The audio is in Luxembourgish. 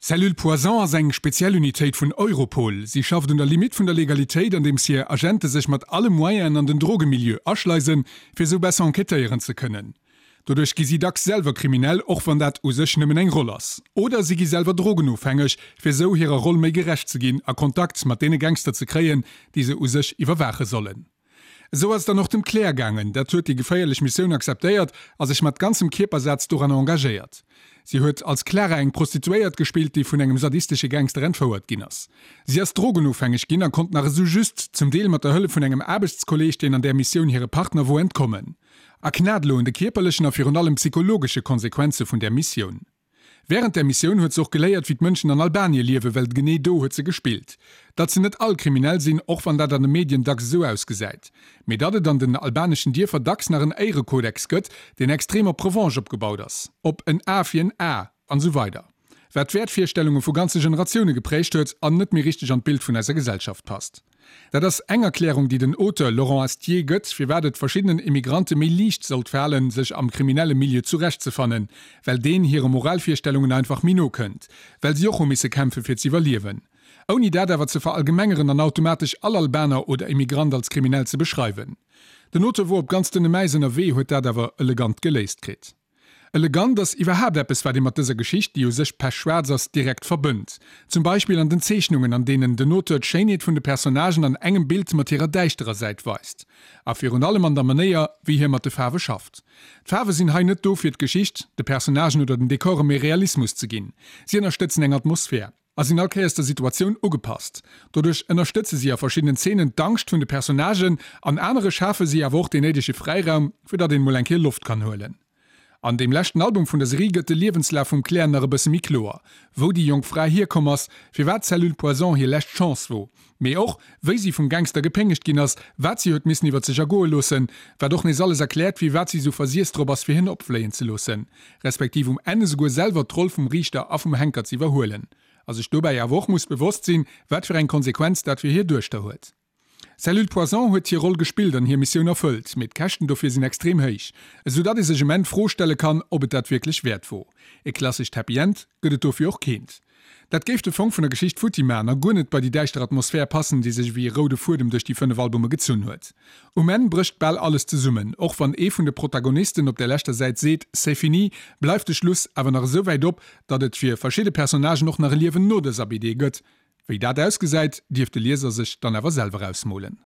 Cellule Poison ass eng speziell Unitéit vun Europol. Si schafft un der Limitt vun der Legalitéit, andeems hir Agente sech mat alle Moyenen an den Drogemilieu aschleisen, fir esou besser enquêtéieren ze kënnen. Doduerch gi si dacks selwer kriminell, och wann dat u sech nëmmen eng Roll ass. Oder si gi selwer drogenofhängeg, fir esou hirer Roll méi gerecht ze ginn a Kontakt mat deene Gangster ze kréien, déi se u sech iwwerwaache sollen. Esou ass et dann och dem Claire gaangen. Dat huet déi geféierlech Missioun akzeptéiert a sech mat ganzem Kierpersaz doranner engagéiert. Si huet als Clara eng Prostituéiert gespillt, déi vun engem sadistesche Gangster entfouert ginn ass. Si ass drogenofhängeg ginn a konnt nach esou just, zum Deel mat der Hëllef vun engem Aarbechtskolleeg, deen an där Missioun hire Partner wor, entkommen. A knat elo un de kierperlechen a virun allem psychologesche Konsequenze vun där Missioun. Wärend där Missioun huet se och geléiert, wéi d'Mënschen an Albanie liewen, well genee do huet se gespillt. Datt se net all kriminell sinn, och wann dat an de Medien dacks esou ausgesäit. Mee datt et an den albaneschen Dierfer dacks nach en Éirekodex gëtt, deen extrem op Revanche opgebaut ass, op en A fir en A, an esou weider. Wat d'Wäertvirstellunge vu ganze Generatioune geprägt huet an net méi richteg an d'Bild vun eiser Gesellschaft passt. Dat ass eng Erklärung, déi den Auteur Laurent Astier gëtt, firwat et verschiddenen Immigrante méi liicht sollt falen, sech am kriminelle Milieu zurechtzefannen, well deen hire Moralvirstellungen einfach méi no kënnt, well si och hu misse kämpfe fir z'iwwerliewen. Ouni dat awer ze verallgemengeren an automatesch all Albaner oder Immigrant als kriminell ze beschreiwen. Den Auteur wor op ganz dënnem Äis ënnerwee, huet dat awer elegant geléist kritt. Elegant ass iwwerhaapt eppes, wat ee mat dëser Geschicht, déi u sech pechschwaarz ass, direkt verbënnt. Zum Beispill an den Zeechnungen, an deenen den Auteur d'Schéinheet vun de Personnagen an engem Bild mat hirer däischterer Säit weist. A virun allem an der Manéier, wéi hie mat de Faarwe schafft. D'Faarwe sinn hei net do, fir d'Geschicht, de Personnagen oder den Dekore méi Realismus ze ginn. Si ënnerstëtzen eng Atmosphär. A sinn all Kéiers der Situatioun ugepasst. Doduerch ënnerstëtze si a verschiddenen Zeenen d'Angscht vun de Personnagen, an anere schafe si awer och deen néidege Fräiraum, fir datt een mol eng Kéier Loft kann huelen. An deem leschten Album vun der Serie gëtt de Liewenslaf vum Claire nach e bësse méi kloer, wou déi jonk Fra hierkomm ass, firwat d'Cellule Poison hir lescht Chance wor, mee och wéi si vum Gangster gepéngegt ginn ass, wat si huet missen iwwer sech ergoe loossen, wat och nees alles erkläert, firwat si sou versiess drop ass fir hien opfléien ze loossen. Respektiv um Enn esouguer selwer d'Roll vum Riichter a vum Henker ze iwwerhuelen, a sech dobäi awer och muss bewosst sinn, wat fir eng Konsequenz dat fir hir Duechter huet. Cellule Poison huet hir Roll gespillt an hir Missioun erfëllt, mee d'Käschten dofir sinn extrem héich, esou datt ee sech um Enn d'Fro stelle kann, ob et dat wierklech wäert wor. E klassescht Happy End gëtt et dofir och keent. Dat géif de Fong vun der Geschicht futti man a guer net bei déi däischter Atmosphär passen, déi sech ewéi e roude Fuedem duerch déi 5 Albume gezunn huet. Um Enn brécht bal alles zesummen, och wann ee vun de Protagonisten op der leschter Säit seet C'est fini, bleift de Schluss awer nach esou wäit op, datt et fir verschidde Personnagen och nach e Liewen no dëser BD gëtt. Wéi dat ausgesäit, dierf de Lieser sech dann awer selwer ausmolen.